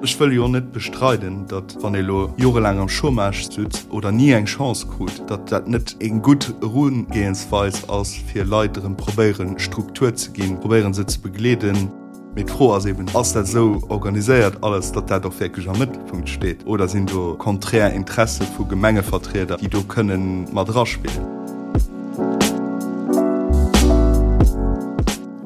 Ech wëll jo net bestreiden, datt wann ee lo jorelaang am Chômage sutz oder ni eng Chance krut, datt dat net eng gutt Erugehensweis ass, fir Leit erëm probéieren, Struktur ze ginn, probéieren se ze begleeden. Mee d'Fro ass eben, Ass dat esou organiséiert alles, datt dat och wierklech am Mëttelpunkt steet oder sinn do konträr Interesse vu Gemengevertrieder, déi do kënnen mat eraspillen?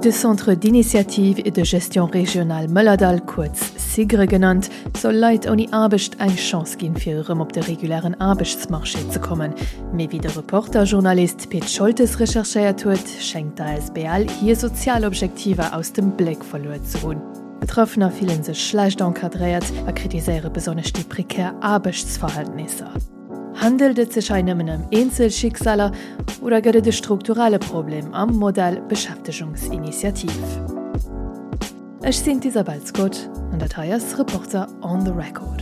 De Centre d'initiative et de gestion régionale Mëllerdall, kuerz SIGRE genannt, soll Leit ouni Aarbecht eng Chance ginn, fir erëm op de regulären Aarbechtsmarché ze kommen. Mee wéi de Reporter-Journalist Pit Scholtes recherchéiert huet, schéngt d'ASBL hir sozial Objektiver aus dem Bléck verluer ze hunn. Betraffener fillen sech schlecht encadréiert a kritiséiere besonnesch déi prekär Aarbechtsverhältnisser. Handelt et sech hei nëmmen ëm Eenzelschicksaler oder gëtt et e strukturelle Problem am Modell Beschäftegungsinitiativ? Ech sinn d'Isabel Scott an dat hei ass Reporter on the Record.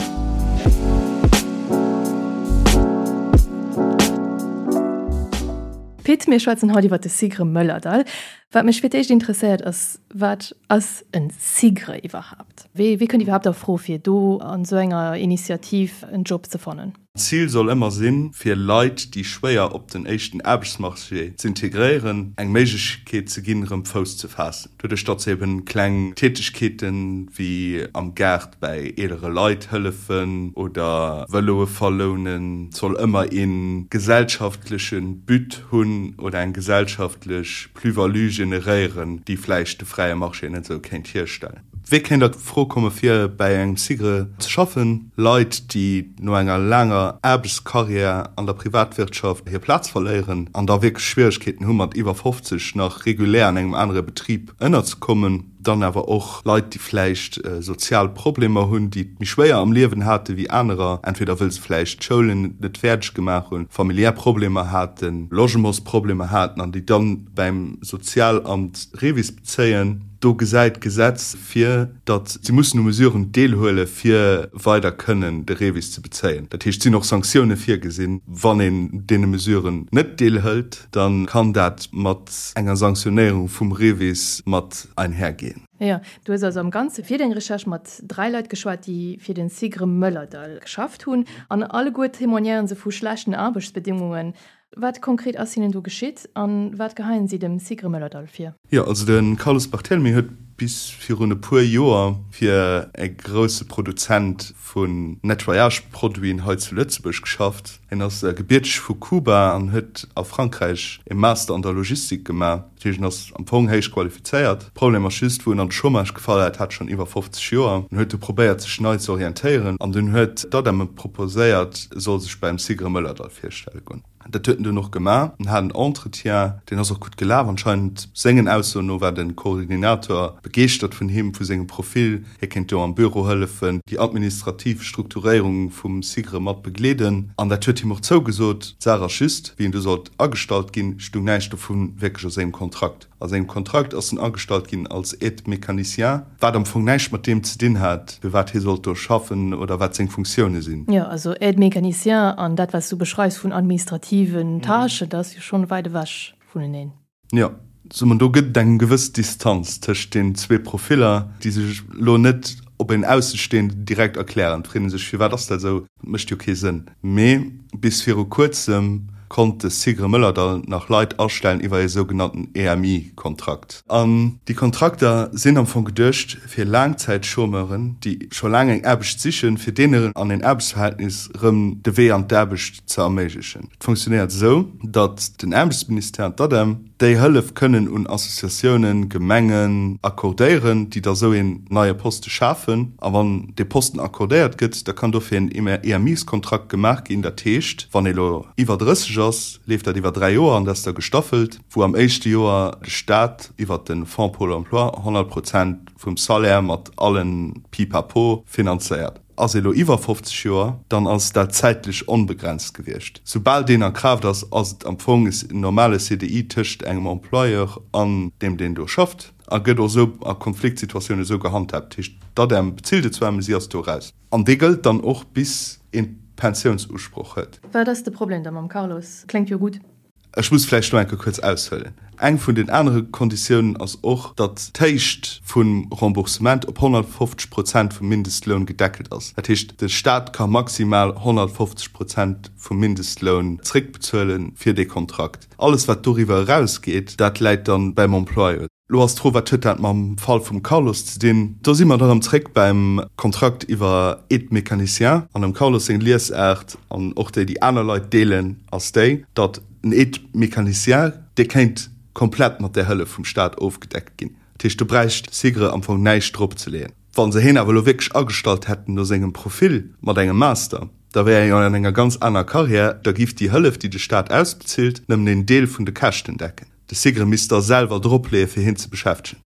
Pit, mir schwätzen haut iwwer de SIGRE Mëllerdall. Wat mech fir d'éischt interesséiert ass, Wat ass en SIGRE iwwerhaapt? Wee kënnt iwwerhaapt a Fro fir do an esou enger Initiativ en Job ze fannen? D'Zil soll ëmmer sinn, fir Leit, déi schwéier op den éischten Aarbechtsmarché z'integréieren, eng Méiglechkeet ze ginn, erëm Fouss ze faassen. Doduerch, datt se eben kleng Tätegkeeten, wéi am Gaart bäi eelere Leit hëllefen oder Vëloe verlounen, et soll ëmmer ee gesellschaftleche But hunn oder eng gesellschaftlech Plus-value generéieren, déi vläicht de fräie Marché net esou kéint hierstellen. Wee kéint a Fro komme fir bäi engem SIGRE ze schaffen? Leit, déi no enger laanger Aarbechtskarriär an der Privatwirtschaft hir Plaz verléieren an da wierklech Schwieregkeeten hu mat iwwer 50 nach regulär an engem anere Betrib ënnerzekommen. Dann awer och Leit, déi vläicht sozial Problemer hunn, déi et méi schwéier am Liewen hate wéi anerer, entweder wëll se vläicht d'Schoulen net fäerdeg gemaach hunn, familiär Problemer haten, Logementsproblemer haten an déi dann bäim Sozialamt Revis bezéien. Do gesäit d'Gesetz vir, datt si mussen u Mesuren deelhuele fir weider kënnen de Revis ze bezéien. Dat heescht, et sinn och Sanktioune virgesinn, wann een deene Mesuren net deelhëlt. Dann kann dat mat enger Sanktionéierung vum REVIS mat einhergehen. Jo, du hues also am Ganze fir deng Recherche mat 3 Leit geschwat, déi fir den SIGRE Mëllerdall geschafft hunn. An alleguer témoignéieren se vu schlechten Aarbechtsbedingungen. Wat konkret ass hinnen do geschitt an wat geheien si dem SIGRE Mëllerdall vir? Jo, also de Carlos Barthelemy huet bis virun e puer Joer fir e grousse Produzent vun Nettoyage-Produiten hei zu Lëtzebuerg geschafft. Hien ass gebierteg vu Kuba an huet a Frankräich e Master an der Logistik gemaach. Dat heescht, en ass am Fong héich qualifizéiert. Problem ass just, wou en an de Chômage gefall hat, hat schonn iwwer 50 Joer. En huet du probéiert, sech nei ze orientéieren an dunn huet d'ADEM em proposéiert, e soll sech beim SIGRE Mëllerdall virstelle goen. Dat huet en dunn och gemaach. En hat en Entretien, deen ass och gutt gelaf anscheinend. Sengen Aussoen no war de Koordinator begeeschtert vun him, vu sengem Profil. Hie kéint do am Büro hëllefen, déi administrativ Strukturéierung vum SIGRE mat begleeden. An dat huet him och zougesot. D'Saach ass just, wéi en du sollt agestallt ginn, stung näischt dovu wierklech a sengem Kontrakt. A sengem Kontrakt ass en agestallt ginn als Aide-mécanicien, wat am Fong näischt mat deem ze dinn hat, fir wat hie sollt do schaffen oder wat seng Funktioune sinn. Jo, also Aide-mécanicien an dat, wat s du beschreifs vun administrativen Tâchen, dat ass jo schonn wäit ewech vuneneen. Jo, soe mer, do gëtt et eng gewëss Distanz tëscht den zwee Profiller, déi sech elo net op een Aussestehenden direkt erklären. Et freet ee sech, firwat ass dat esou? Dat mécht jo kee Sënn. Mee bis viru kuerzem konnt de SIGRE Mëllerdall nach Leit astellen iwwer ee sougenannten EMI-Kontrakt. An déi Kontrakter sinn am Fong geduecht fir Laangzäitchômeuren, déi scho laang eng Aarbecht sichen, fir deenen an een Aarbechtsverhältnis erëm de Wee an d'Aarbecht ze erméiglechen. Et funktionéiert esou, datt den Aarbechtsministère an d'ADEM déi Hëllef kënnen un Associatiounen, Gemengen accordéieren, déi da sou een neie Poste schafen. A wann dee Posten accordéiert gëtt, da kann dofir en EMIs-Kontrakt gemaach ginn. Dat heescht, wann ee lo iwwer 30 ass, leeft dat iwwer 3 Joer an dat ass da gestaffelt, wou am éischte Joer de Staat iwwert de Fonds Pôle emploi 100 Prozent vum Salaire mat allen Pipapo finanzéiert. Ass ee lo iwwer 50 Joer, dann ass dat zäitlech onbegrenzt gewiescht. Soubal deen a Kraaft ass, ass et am Fong en normale CDI tëscht engem Employeur an deem, deen do schafft, a gëtt och esou a Konfliktsituatiounen esou gehandhaabt. Dat heescht, d'ADEM bezilt et zwar, mä si ass do eraus. An dee gëllt dann och bis een Pensiounsusproch huet. Wat ass de Problem da mam Carlos? Kléngt jo gutt. Ech muss vläicht do eng Kéier kuerz aushuelen. Eng vun den anere Konditiounen ass och, datt d'Héicht vum Remboursement op 150 Prozent vum Mindestloun gedeckelt ass. Dat heescht, de Stat ka maximal 150 Prozent vum Mindestloun zréckbezuele fir dee Kontrakt. Alles, wat doriwwer erausgeet, dat läit dann beim Employeur. Lo ass d'Fro, Wat huet dat mam Fall vum Carlos ze dinn? Do si mer da rëm zréck beim Kontrakt iwwer Aide-mécanicien. An dem Carlos seng Liesaart, an och déi, déi aner Leit deelen, ass déi, datt en Aide-mécanicien, dee kéint komplett mat där Hëllef vum Staat ofgedeckt ginn. Dat heescht, do bräicht SIGRE am Fong näischt dropzeleeën. Wa se hien awer elo wierklech agestallt hätten no sengem Profil mat engem Master, da wär hien an enger ganz aner Karriär, da giff déi Hëllef, déi de Staat ausbezilt, nëmmen een Deel vun de Käschten decken. De SIGRE misst da selwer dropleeë fir hien ze beschäftegen.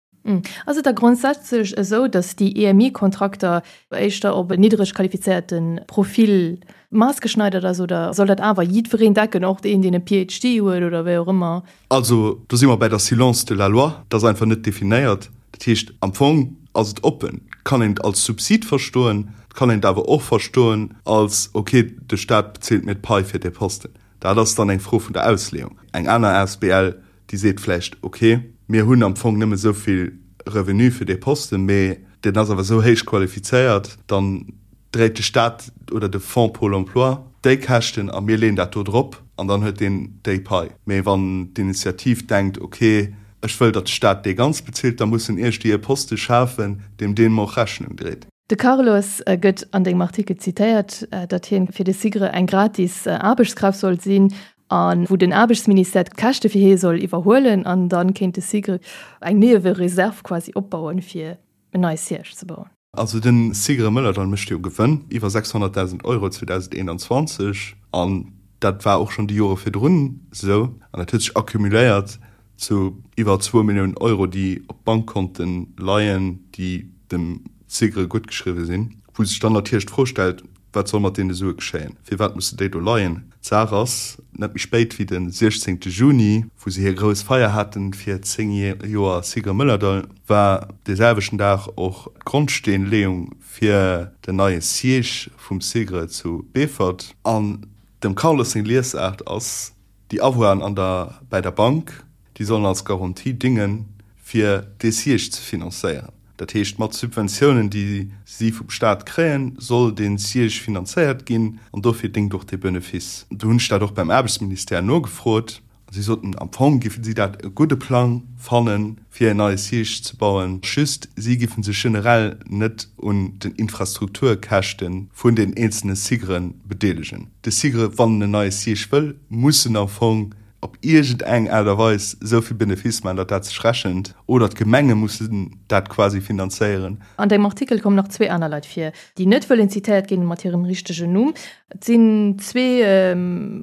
Ass et da grondsätzlech esou, datt déi EMI-Kontrakter éischter op en niddreg qualifizéierte Profil maassgeschneidert ass oder soll dat awer jiddwereen decken, och deen, deen e PhD huet oder wéi och ëmmer? Also do si mer bäi der Silence de la loi. Dat ass einfach net definéiert. Dat heescht, am Fong ass et oppen. Et kann een et als Subsid verstoen, et kann een et awer och verstoen als, okay, de Staat bezilt mir d'Pai fir dee Posten. Dat ass dann eng Fro vun der Ausleeung. Eng aner asbl, déi seet vläicht, ok, mir hunn am Fong nëmme esou vill Revenu fir dee Posten, mee deen ass awer esou héich qualifizéiert, dann dréit de Staat oder de Fonds Pôle emploi déi Käschten a mir leeën dat do drop an dann huet deen déi Pai. Mee wann d'Initiativ denkt, ok, ech wëll, datt de Staat dee ganz bezilt, da muss en iergdéi e Poste schafen, deem deem och Rechnung dréit. De Carlos gëtt an dengem Artikel zitéiert, datt hien fir de SIGRE eng gratis Aarbechtskraaft sollt sinn a wou den Aarbechtsministère d'Käschte fir hie soll iwwerhuelen an da kéint de SIGRE eng Niewereserv quasi opbauen, fir en neie Siège ze bauen. Also de SIGRE Mëllerdall mécht jo Gewënn, iwwer 600.000 Euro 2021, an dat war och schonn déi Jore virdrun esou an dat huet sech accumuléiert zu iwwer zwou Milliounen Euro, déi op Bankkonte leien, déi dem SIGRE guttgeschriwwe sinn, wou sech dann natierlech d'Fro stellt, Wat soll mat deene Sue geschéien? Firwat musse déi do leien? D'Saach ass, net méi spéit wéi de 16 Juni, wou se hir grouss Feier haten fir 10 Joer SIGRE Mëllerdall, war dee selwechten Dag och d'Grondsteenleeung fir den neie Siège vum SIGRE zu Beefort. An dem Carlos seng Liesaart ass, Déi Avoiren an der bäi der Bank, déi sollen als Garantie dingen, fir dee Siège ze finanzéieren. Dat heescht, mat Subventiounen, déi si vum Staat kréien, soll dee Siège finanzéiert ginn an dofir déngt och dee Benefice. Do hunn ech dat och beim Aarbechtsministère nogefrot a si soten, am Fong géife si dat e gudde Plang fannen, fir en neie Siège ze bauen, just si géife sech generell net un den Infrastrukturkäschte vun den eenzelne SIGRe bedeelegen. De SIGRE, wann en en neie Siège wëll, muss en am Fong op iergend eng Aart a Weis esou vill Benefice maachen, datt dat sech rechent, oder d'Gemenge mussen dat quasi finanzéieren. An dengem Artikel kommen nach zwee aner Leit vir, déi net wëllen zitéiert ginn mat hirem richtegen Numm. Et sinn zwee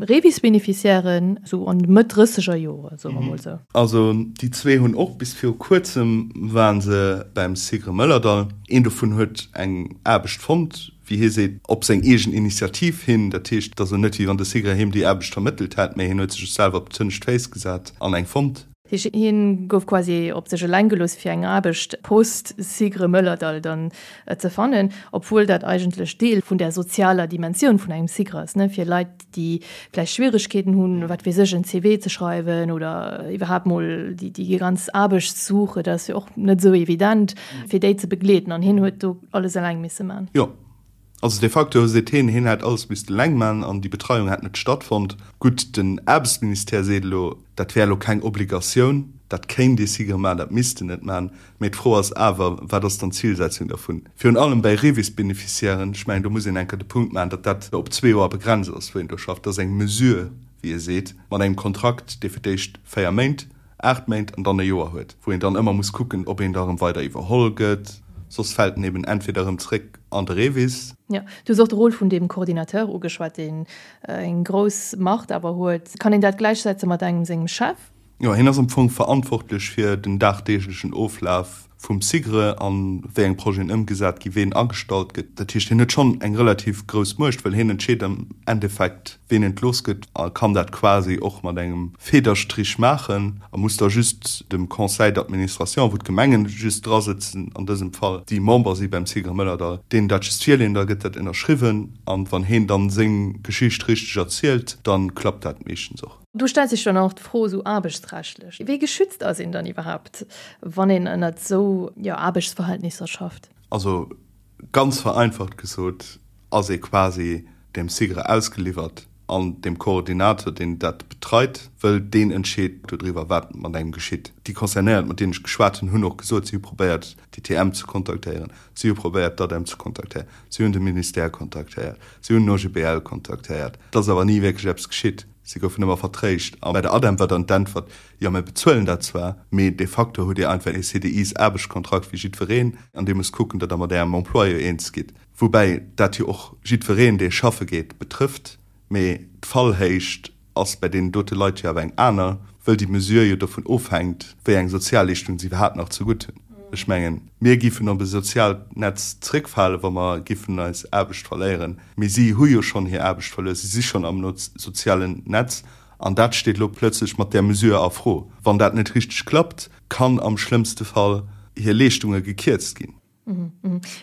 Revis-Beneficiairen, esou an de Mëtt drësseger Jore, soe mer mol esou. Also déi zwee hunn och, bis viru kuerzem ware se beim SIGRE Mëllerdall. Een dovun huet eng Aarbecht fonnt, wéi hie seet, op seng eegen Initiativ hin. Dat heescht, et ass elo net, wéi wann de SIGRE him déi Aarbecht vermëttelt hätt, mä hien huet sech selwer op d'hënnescht Féiss gesat an eng fonnt. Hien gouf quasi op sech eleng gelooss fir eng Aarbecht post SIGRE Mëllerdall dann ze fannen, obwuel dat eigentlech Deel vun der sozialer Dimensioun vun engem SIGRE ass, ne, fir Leit déi vläicht Schwieregkeeten hunn, wat weess ech, en CV ze schreiwen oder iwwerhaapt mol déi déi ganz Aarbechtssuche, dat ass jo och net esou evident, fir déi ze begleeden an hien huet do alles eleng misse man. Jo. Also de facto seet hien, hien hätt alles misste eleng man an déi Betreiung hätt net stattfonnt. Gutt, den Aarbechtsministère seet elo, dat wär elo keng Obligatioun, dat kéint ee SIGRE man, dat misst en net man. Mee d'Fro ass awer, wat ass dann d'Zilsetzung dervun? Virun allem bäi REVIS-Beneficiairen, ech mengen, do muss een eng Kéier de Punkt maachen, datt dat op zwee Joer begrenzt ass, wou een do schafft. Dat ass eng Mesure, wéi e seet, mat engem Kontrakt, dee fir d'éischt véier Méint 8 Méint an dann e Joer huet, wou een dann ëmmer muss kucken, ob een da erëm weider iwwerholl gëtt, soss fält en eben entweder erëm zréck an de REVIS. Jo, du hues och de Rôle vun deem Coordinateur ugeschwat, deen eng grouss Macht awer huet. Kann een dat gläichsetze mat engem sengem Chef? Jo, hien ass am Fong verantwortlech fir den dagdeeglechen Oflaf. vum SIGRE an wéi eng Projeten ëmgesat ginn, ween agestallt gëtt. Dat heescht, hien huet schonn eng relativ grouss Muecht, well hien entscheet am Endeffekt, ween entlooss gëtt a kann dat quasi och mat engem Federstrich maachen a muss da just dem Conseil d'administration, wou d'Gemengen just drasëtzen an dësem Fall, déi Member si beim SIGRE Mëllerdall, deenen dat just virleeën, da gëtt dat ënnerschriwwen an wann heen dann seng Geschicht richteg erzielt, dann klappt dat meeschtens och. Do stellt sech dann och d'Fro esou aarbechtsrechtlech, wéi geschützt ass een dann iwwerhaapt, wann een ënnert esou, jo, Aarbechtsverhältnisser schafft? Also ganz vereinfacht gesot ass ee quasi dem SIGRE ausgeliwwert an dem Koordinator, deen dat betreit, wëll deen entscheet dodriwwer, wat mat engem geschitt. Déi Concernéiert, mat deenen ech geschwat hunn, hunn och gesot, si hu probéiert, d'ITM ze kontaktéieren, si hu probéiert, d'ADEM ze kontaktéieren, si hunn de Ministère kontaktéiert, si hunn den OGBL kontaktéiert. Et ass awer ni wierklech eppes geschitt. Si goufen ëmmer vertréischt. A bei der ADEM war dann d'Äntwert, Jo, mir bezuelen dat zwar, mee de facto hutt Dir einfach ee CDIs-Aarbechtskontrakt wéi jiddwereen an Dir musst kucken, datt Der mat Ärem Employeur eens gitt. Woubäi dat jo och jiddwereen, dee schaffe geet, betrëfft. Mee d'Fallhéicht ass bei deenen dote Leit jo awer eng aner, wëll déi Mesure jo dovun ofhänkt, wéi eng Sozialleeschtung se iwwerhaapt nach zegutt hunn. Ech mengen, mir giffen op e soziaalt Netz zréckfalen, wa mer giffen eis Aarbecht verléieren. Mee si hu jo schonn hir Aarbecht verluer, si si schonn am sozialen Netz. An dat steet elo plötzlech mat där Mesure a Fro. Wann dat net richteg klappt, kann am schlëmmste Fall hir Leeschtunge gekierzt ginn.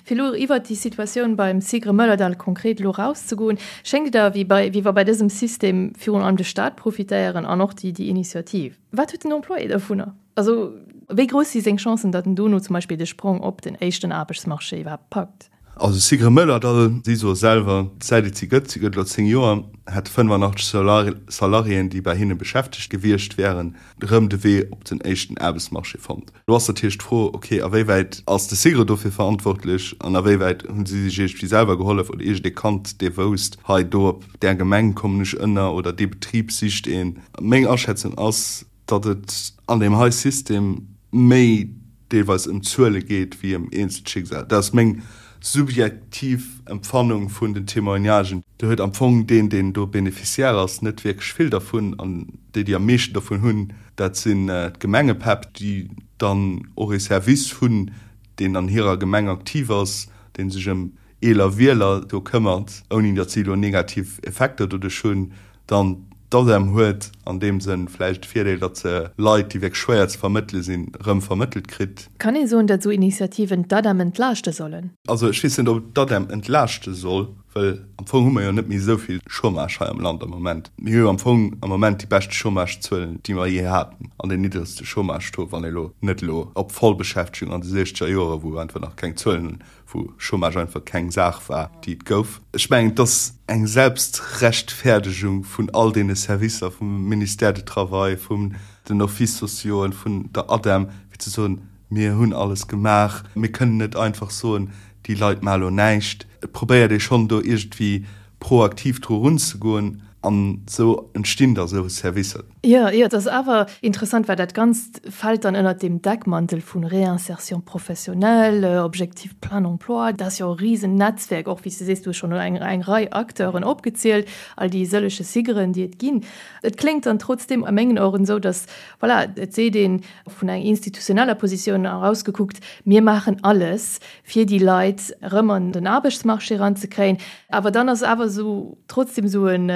Fir elo iwwert déi Situatioun beim SIGRE Mëllerdall konkret elo erauszegoen, schéngt et awer, wéi wa bei dësem System virun allem de Staat profitéieren an och déi Initiativ. Wat huet den Employé dovunner? Also wéi grouss si seng Chancen, datt en dono zum Beispill de Sprong op den éischten Aarbechtsmarché iwwerhaapt packt? Also SIGRE Mëllerdall, si soe selwer, säit et si gëtt, si gëtt elo 10 Joer, hätte 85 Salariéen, déi bei hinne beschäftegt gewiescht wären, erëm de Wee op den éischten Aarbechtsmarché fonnt. Elo ass natierlech d'Fro, ok, a wéi wäit ass de SIGRE dofir verantwortlech an a wéi wäit hu si sech iergendwéi selwer gehollef oder iergendee kannt, dee wousst, hei do op där Gemeng kommen ech ënner oder dee Betrib sicht een. Meng Aschätzung ass, datt et an deem hei System méi deelweis ëm Zuele geet wéi ëm eenzel Schicksal. Dat ass meng subjektiv Empfannung vun den Témoignagen. Do huet am Fong deen, deen do Bénéficiaire ass, net wierklech vill dervun. An déi, déi am meeschten dervun hunn, dat sinn d'Gemengepäpp, déi dann och ee Service hunn, deen an hirer Gemeng aktiv ass, dee sech ëm eeler Wieler do këmmert, ouni datt si elo negativ Effekter doduerch hunn. Dann d'ADEM huet an deem Sënn vläicht de Virdeel, datt se Leit, déi wierklech schwéier ze vermëttele sinn, erëm vermëttelt kritt. Kann ee soen, datt esou Initiativen d'ADEM entlaaschte sollen? Also ech weess net, ob et d'ADEM entlaaschte soll, well am Fong hu mer jo net méi esou vill Chômage hei am Land am Moment. Mir hu jo am Fong am Moment déi beschte Chômagezuelen, déi mer jee haten, an deen niddregste Chômage-Taux, wann ee lo net elo op Vollbeschäftegung an de siechzeger Joere, wou einfach nach keng Zuelen wou Chômage einfach keng Saach war, déi et gouf. Ech mengen, et ass eng Selbstrechtferdegung vun all deene Servicer, vum Ministère du Travail, vun den Offices sociauxen, vun der ADEM, fir ze soen, Mir hunn alles gemaach, mir kënnen net einfach soen, déi Leit maache lo näischt. Et probéiert ee schonn do iergendwéi proaktiv dru runzegoen an esou entstinn da sou Servicer. Jo, jo, et ass awer interessant, well dat Ganzt fält dann ënnert deem Deckmantel vu Réinsertion professionnelle, Objectif plein emploi. Dat ass jo e Risennetzwerk, och wéi s de sees, du hues schonn eng, eng Rei Acteuren opgezielt, all déi sëllege SIGRen, déi et ginn. Et kléngt dann trotzdeem a mengen Oueren esou, datt, voilà, et seet een vun enger institutioneller Positioun erausgekuckt, mir maachen alles, fir déi Leit erëm an den Aarbechtsmarché eranzekréien. Awer dann ass awer esou trotzdem esou en,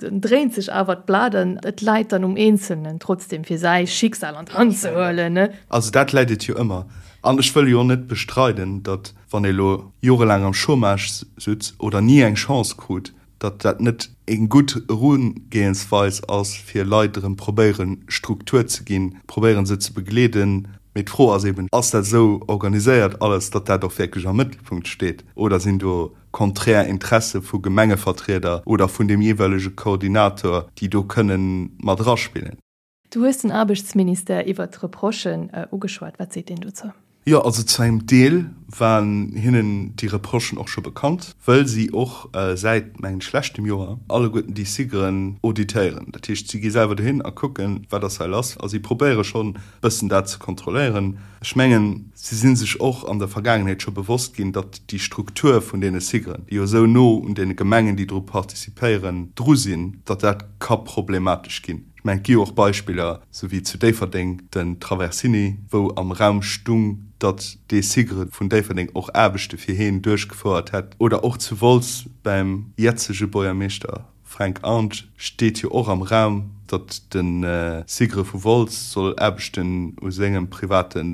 dann dréint sech awer d'Blat an et läit dann um Eenzelnen trotzdem fir säi Schicksal an d'Hand ze huelen, ne? Also dat läit et jo ëmmer. An ech wëll jo och net bestreiden, datt wann ee elo jorelaang am Chômage sutz oder ni eng Chance krut, datt dat net eng gutt Erugehensweis ass, fir Leit erëm probéieren, Struktur ze ginn, probéieren se ze begleeden. Mee d'Fro ass eben, Ass dat esou organiséiert alles, datt dat och wierklech am Mëttelpunkt steet, oder sinn do konträr Interesse vu Gemengevertrieder oder vun deem jeeweilege Koordinator, déi do kënnen mat eraspillen? Du hues den Aarbechtsministère iwwert d'Reprochen ugeschwat. Wat seet deen dozou? Jo, also zu engem Deel. Waren hinnen déi Reprochen och scho bekannt, wëll si och säit, mengen ech, leschtem Joer alleguerten déi SIGRen auditéieren. Dat heescht, si gi selwer dohin a kucken, wat ass hei lass, a si probéiere schonn e bëssen dat ze kontrolléieren. Ech mengen, si si sech och an der Vergaangenheet scho bewosst ginn, datt déi Struktur vun deene SIGRen, déi jo esou no un deene Gemengen, déi dru participéieren, dru sinn, datt dat ka problematesch ginn. Ech mengen, et gi jo och Beispiller, sou wéi zu Déifferdeng den Traversini, wou am Raum stung, datt dee SIGRE vun Déifferdeng och Aarbechte fir heen duerchgefouert hätt. Oder och zu Wolz beim jetzege Buergermeeschter Fränk Arndt steet jo och am Raum, datt de SIGRE vu Wolz soll Aarbechten u sengem private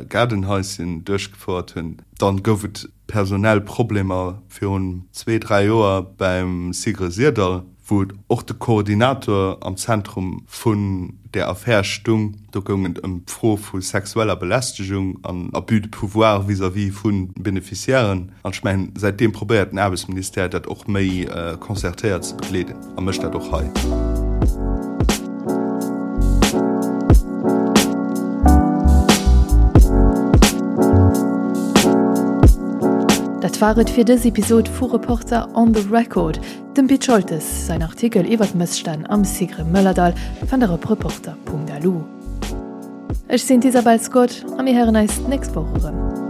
Gaardenhaischen duerchgefouert hunn. Dann gouf et personell Problemer virun zwee, dräi Joer beim SIGRE Syrdall, wou och de Koordinator am Zentrum vun där Affär stung. Do goung et ëm d'Fro vu sexueller Belästegung an Abus de pouvoir vis-à-vis vu Beneficiairen. An ech mengen, säitdeem probéiert den Aarbechtsministère dat och méi concertéiert ze begleeden a mécht dat och hei. Dat war et fir dës Episod vu Reporter on the Record. Dem Pit Scholtes säin Artikel iwwer d'Mësstänn am Sigre Mëllerdall fannt der op reporter.lu. Ech sinn d'Isabel Scott a mir héieren eis d'nächst Woch erëm.